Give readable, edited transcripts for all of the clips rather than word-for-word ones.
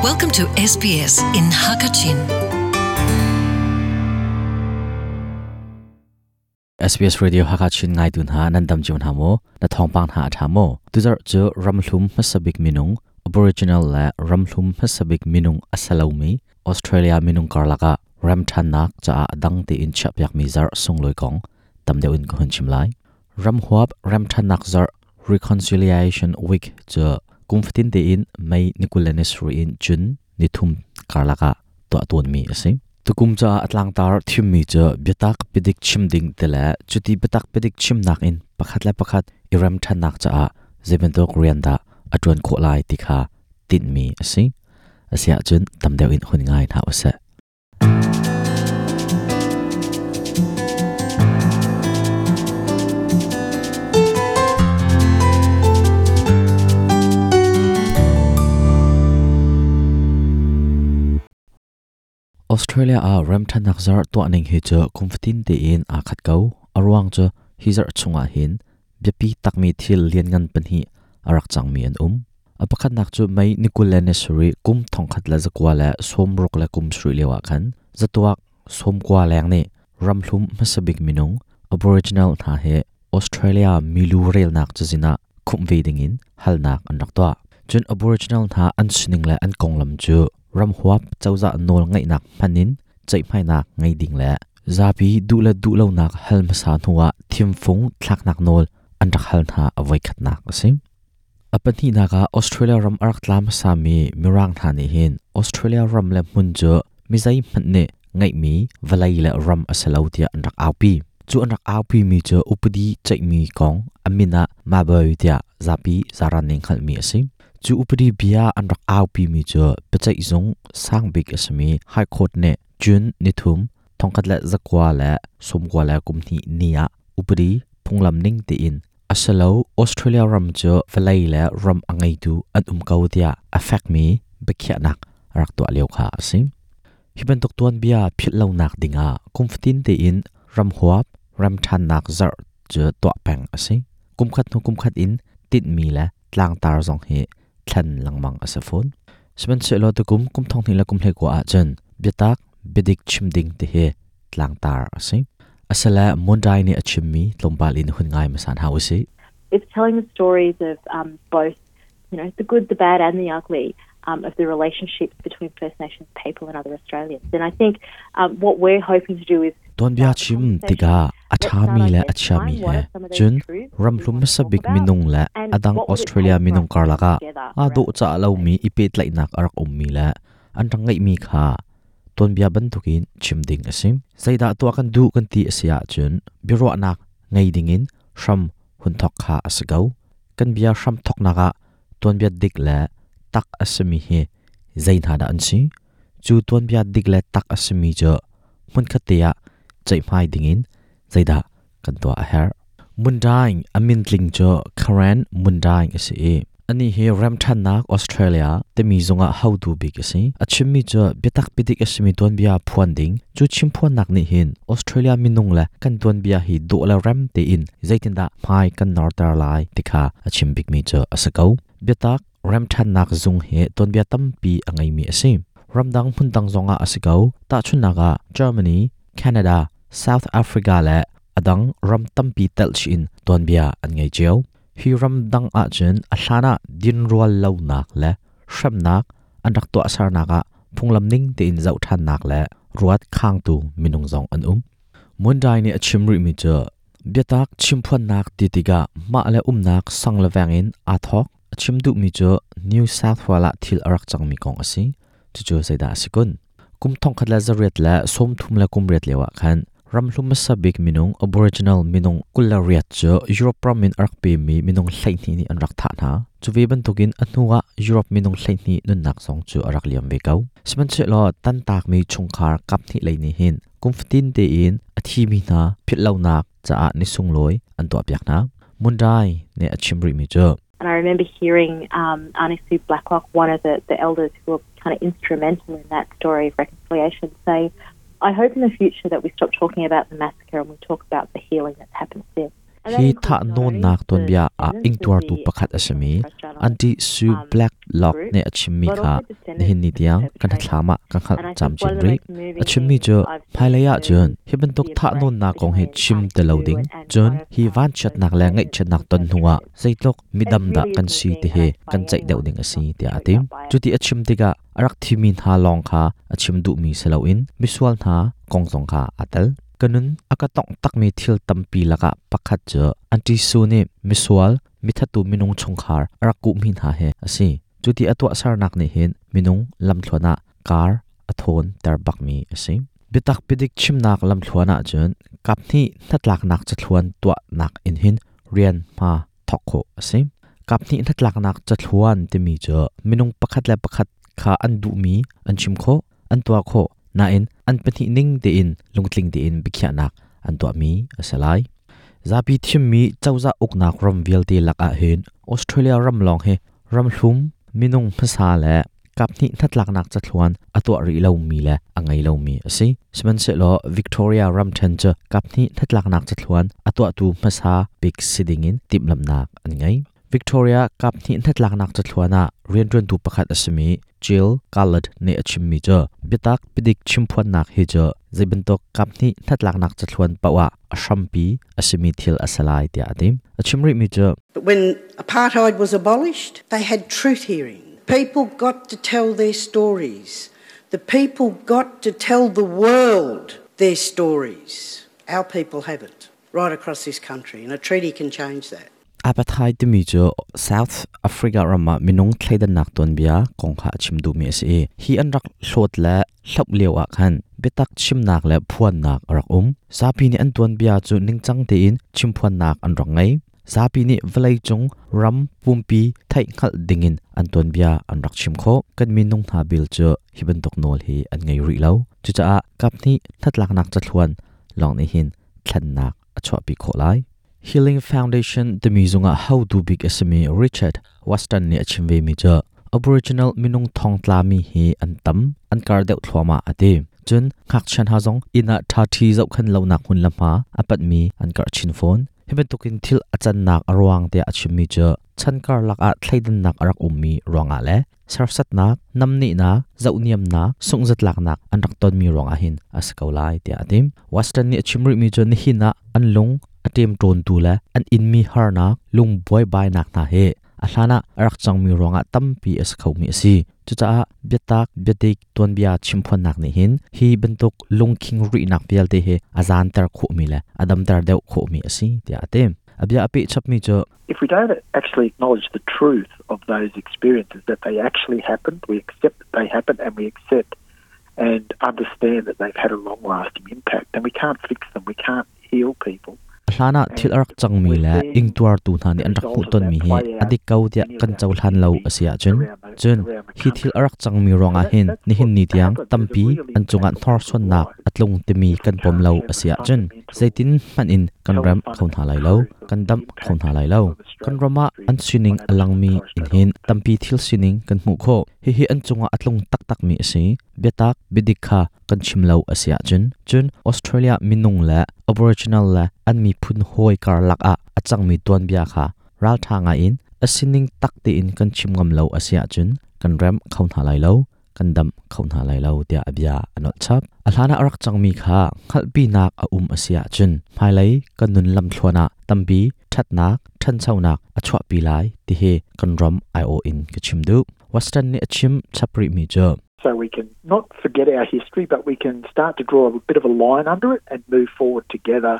Welcome to SBS in Hakachin. SBS Radio Hakachin ngai tun ha nan dam chiun ha mo na thongpang ha tha mo tuzar chu ramhlum hmasabik minung Aboriginal le ramhlum hmasabik minung asalomi Australia minung karlaka ramthanak cha adang te in chapyak mi zar sungloi kong tamdeu in ko hun chim lai ramhuap ramthanak zar Reconciliation Week chu kumfatin te in May nikulanis ru in June nithum karlaka to ton mi ase tukum cha atlang tar thim mi chu biatak pidik chim ding tele chuti biatak pidik chim nak in pakhat la pakhat iram thanak cha a zebento rianda atun kho lai tikha tin mi ase asia chun tamdeu in hun ngai na ase. Australia a ramthanak zar to aning hi chu kumfatin te in a khat ko arwang chu hi zar chunga hin biapi takmi thil lian ngan pan hi arak changmi an a pakhat nak chu mai nikulene suri kum thongkhat la zakwa la somruk la kum sri lewa khan zatuak somkwa leng ne ramhlum masabik minung Aboriginal tha he Australia milu rel nak chuzina khum ve dingin halnak an rak to chun Aboriginal tha an sining la an konglam chu ramhuap chawza nol ngai nak phanin chai phai nak ngai ding la zapi du la du lo nak halma sa nuwa thimfung thlak nak nol an rak hal tha avoi khat nak asim apani naga Australia ram arak tlam sami mirang tha ni hin Australia ram le mun chu mizai phanne ngai mi valai la ram asalo tia an rak aupi chu an rak aupi mi chu upadi chai mi kong amina maboi tia zapi zaran ning khal mi asim chu upadi bia an rak aupi mi chu pachai zong sangbik asmi high court ne jun nithum thongkhat la zakwa la somkwa la kumni nia upadi phunglam ning te in asalo Australia ram chu valai la ram angai tu an umkau tia affect mi bekhya nak rak to leo kha asim hiban tok tuan bia phit lo nak dinga kumftin te in ram huap ram than nak zar chu to peng ase kumkhat nu kumkhat in tit mi la tlang tar zong he thlan langmang asafon sman se lo tu kum kum thong ni la kum hle ko a chen biatak bidik chimding te he tlang tar ase asala mondai ni achimmi tlompal in hun ngai masan hausi. It's telling the stories of both, you know, the good, the bad and the ugly of the relationships between First Nations people and other Australians. And I think what we're hoping to do is ton bia chim tiga athami la achami he chun ramhlum sabik minung la adang Australia minung karlaka a do cha lo mi ipet lai nak arak ummi la an rangai mi kha ton bia ban tukin chimding asim zaida to kan du kan ti asia chun biro nak ngai dingin shram hun thok kha asgau kan bia shram thok naka ton bia dik la tak asmi he zain hada an si chu ton bia dik la tak asmi jo mun khatia chai mai dingin zaida kan to a her mundaing amin tling cho Karen mundaing ase ani he ramthan nak Australia te mi zonga how to big ase achimmi cho betak pidik asmi ton bia phuan ding chu chim phuan nak ni hin Australia minung la kan ton bia hi do la ram te in zaitin da mai kan northern lai tikha achim big mi cho asakau betak ramthan nak zung he ton bia tampi angai mi ase ramdang phundang zonga asakau ta chunaga Germany, Canada, South Africa la adang ram tampi tel chin ton bia an ngai cheu hi ram dang a chen a hlana din rual lo nak le hram nak an rak to asar naka phunglam ning te in zau than nak le ruat khang tu minung zong an mundai ni achim ri mi cha biatak chimphuan nak ti tiga ma le um nak sang le wangin a thok achim du mi cha New South Wales thil arak chang mi kong asi chu chu saida sikun kum thong khat la zariat la som thum la kum riat lewa khan ramhlum sabik minung Aboriginal minung kulariat chu Europe ramin arak pe mi minung hlaihni ni an rak tha na chuwe ban tukin anuwa Europe minung hlaihni nun nak song chu arak liam ve kau siman che lo tan tak mi chungkhar kap ni leini hin kumftin te in athi mi na phitlo nak cha a ni sung loi an to apyak na mundai ne achimri mi chu. And I remember hearing Auntie Sue Blacklock, one of the elders who were kind of instrumental in that story of reconciliation, say, I hope in the future that we stop talking about the massacre and we talk about the healing that's happened since. Hi thahnawnnak tuanbia ah ingtuartu pakhat a simi Aunty Sue Blacklock nih a chimmi kha nihin ni tiang kan hnathlam ah ka hngalh camcin rih. A chimmi cu hmailei ah cun hi bantuk thahnawnnak kong hi chim ti lo ding, cun hi vanchiatnak le ngaihchiatnak ton hnuah zeitluk midam dah kan si ti hi kan ceih deuh ding a si tiah a ti. Cuti a chim tikah a rak thimi hna lawng kha a chim duhmi si loin misual hna kong zong kha aa tel. Ka nun a ka tongh takmi thil tampi lakah pakhat cu Aunty Sue nih misual, mithattu minung chungkhar a rak kuhmi hna hi a si. Cuti a tuahsernak nih hin minung lamthluan ah kar a thawn ter bakmi a si. Biatak biadik chimnak lamthluan ahcun kaphnih hnatlaknak cathluan tuahnak in hin rian hma thawk khawh a si. Kaphnih hnatlaknak cathluan timi cu minung pakhat le pakhat kha an duhmi an chim khawh, an tuah khawh, nain an pahnih ning tein lungtling tein biakhiahnak an tuahmi a si lai. Zapi thimmi cozah uknak ram vialte lakah hin Australia ram lawng hi ramhlum minung hmasa le kaphnih hnatlaknak cathluan a tuah rih lomi le a ngei lomi a si. Sihmanhsehlaw Victoria ramṭhen cu kaphnih hnatlaknak cathluan a tuahtu hmasa bik si dingin timhlamhnak an ngei. Victoria kaphnih hnatlaknak cathluan ah rianṭuantu pakhat a simi Jill Garland nih a chimmi cu biatak biadik chimphuannak hi cu zeibantuk kaphnih hnatlaknak cathluan paoh ah a hrampi a simi thil a si lai tiah a ti. A chim rihmi cu But when apartheid was abolished, they had truth hearings. People got to tell their stories. The people got to tell the world their stories. Our people haven't, right across this country, and a treaty can change that. Apartheid timi cu South Africa ram ah minung thleidannak tuanbia kong kha a chim duhmi a si i hi an rak hlawt le hloh lio ah khan biatak chimnak le phuannak a rak um. Zapi nih an tuanbia cu ningcang tein chimphuannak an rak ngei. Zapi nih vawleicung ram pumpi theihhngalh dingin an tuanbia an rak chim khawh. Kan minung hna bil cu hi bantuk nawl hi an ngei rih lo. Cucaah kaphnih hnatlaknak cathluan lawng nih hin thlennak a chuahpi khawh lai. Healing Foundation timi zungah hotu bik a simi Richard Weston nih a chim vemi cu Aboriginal minung thongtlami hi an tam, an kar deuh thluahmah a ti. Cun ngakchia hna zong inn ah ṭhaṭhi zohkhenh lonak hmun le hma a panhmi an karh chin fawn. Hi bantukin thil a cannak a ruang tiah a chimmi cu chan karlak ah thleidannak a rak ummi ruangah le serhsatnak, namnehnak, zohniamnak, sunghzatlaknak an rak tonmi ruangah hin a si ko lai tiah a ti. Western nih a chim rihmi cu nihin ah an lung a ṭemṭawntu le an inmi harnak, lung buaibainak hna hi a hlan ah a rak cangmi ruangah tampi a si khomi a si. Cucaah biatak, biadik, tuanbia chimphuannak nih hin hi bantuk lungkhing rihnak vialte hi a zaanter khawhmi le a damter deuh khawhmi a si tiah a ti. A bia a peh chapmi cu If we don't actually acknowledge the truth of those experiences, that they actually happened, we accept that they happened and we accept and understand that they've had a long-lasting impact, then we can't fix them, we can't heal people. Hlan ah thil a rak cangmi le ingtuartu hna nih an rak hmuhtonmi hi a dik ko tiah kan cohlan lo a si ahcun, cun hi thil a rak cangmi ruangah hin nihin ni tiang tampi an cungah hnorsuannak a tlung timi kan pom lo a si ahcun zeitin hmanh in kan remh kho hna lai lo, kan damh kho hna lai lo. Kan ram ah an sining a langmi in hin tampi thil sining kan hmuh khawh. Hihi an cungah a tlung taktakmi a si. Biatak, biadik kha kan chim lo a si ahcun, cun Australia minung le Aboriginal le an miphun hawi karlak ah a cangmi tuanbia kha ralṭha ngaiin a sining tak tein kan chim ngam lo a si ahcun kan remh kho hna lai lo, kan damh kho hna lai lo tiah a bia a nolh chap. A hlan ah a rak cangmi kha hngalhpinak a um a si ahcun hmailei kan nun lamthluan ah tampi ṭhatnak, ṭhanchonak a chuahpi lai ti hi kan ram aiawh in ka chim duh. Western nih a chim chap rihmi cu So we can not forget our history, but we can start to draw a bit of a line under it and move forward together.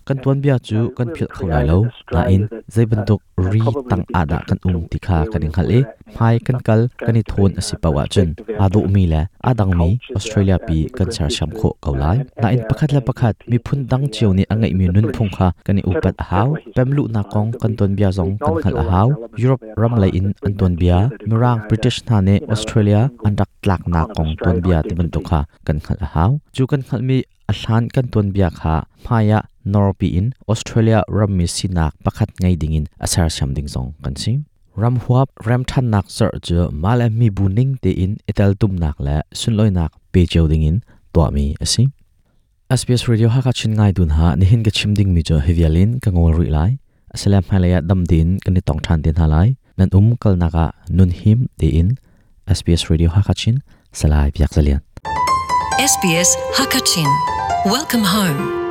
Kan tuanbia cu kan philh kho lai lo, nain zei bantuk ri tang ah dah kan um ti kha kan i hngalh i hmai kan kal kan i thawn a si paoh ahcun aa dawhmi le aa dangmi Australia pi kan sersiam khawh ko lai. Nain pakhat le pakhat miphun dang cio nih a ngeihmi nunphung kha kan i upat a hau. Pemluhnak kong kan tuanbia zong kan hngalh a hau. Europe ram lei in an tuanbia, Mirang British hna nih Australia an rak tlaknak kong tuanbia ti bantuk kha kan hngalh a hau. Cu kan hngalhmi a hlan kan tuanbia kha hmai ah norpi in Australia rammi sinak pakhat ngei dingin a sersiam ding zong kan si. Ram huap remṭhannak zarh cu mah le mibu ning tein i teltumnak le sunlawinak pe cio dingin tuahmi a si. SBS Radio Hakachin ngai dun ha nihin ka chim ding mi chu hivialin ka ngol ri lai. Asala hmailei ah dam tein kan i tong ṭhan te hna lai. Nan um kalnak ah nun him tein SBS Radio Hakachin Salai Biak Zalian. SBS Hakachin. Welcome home.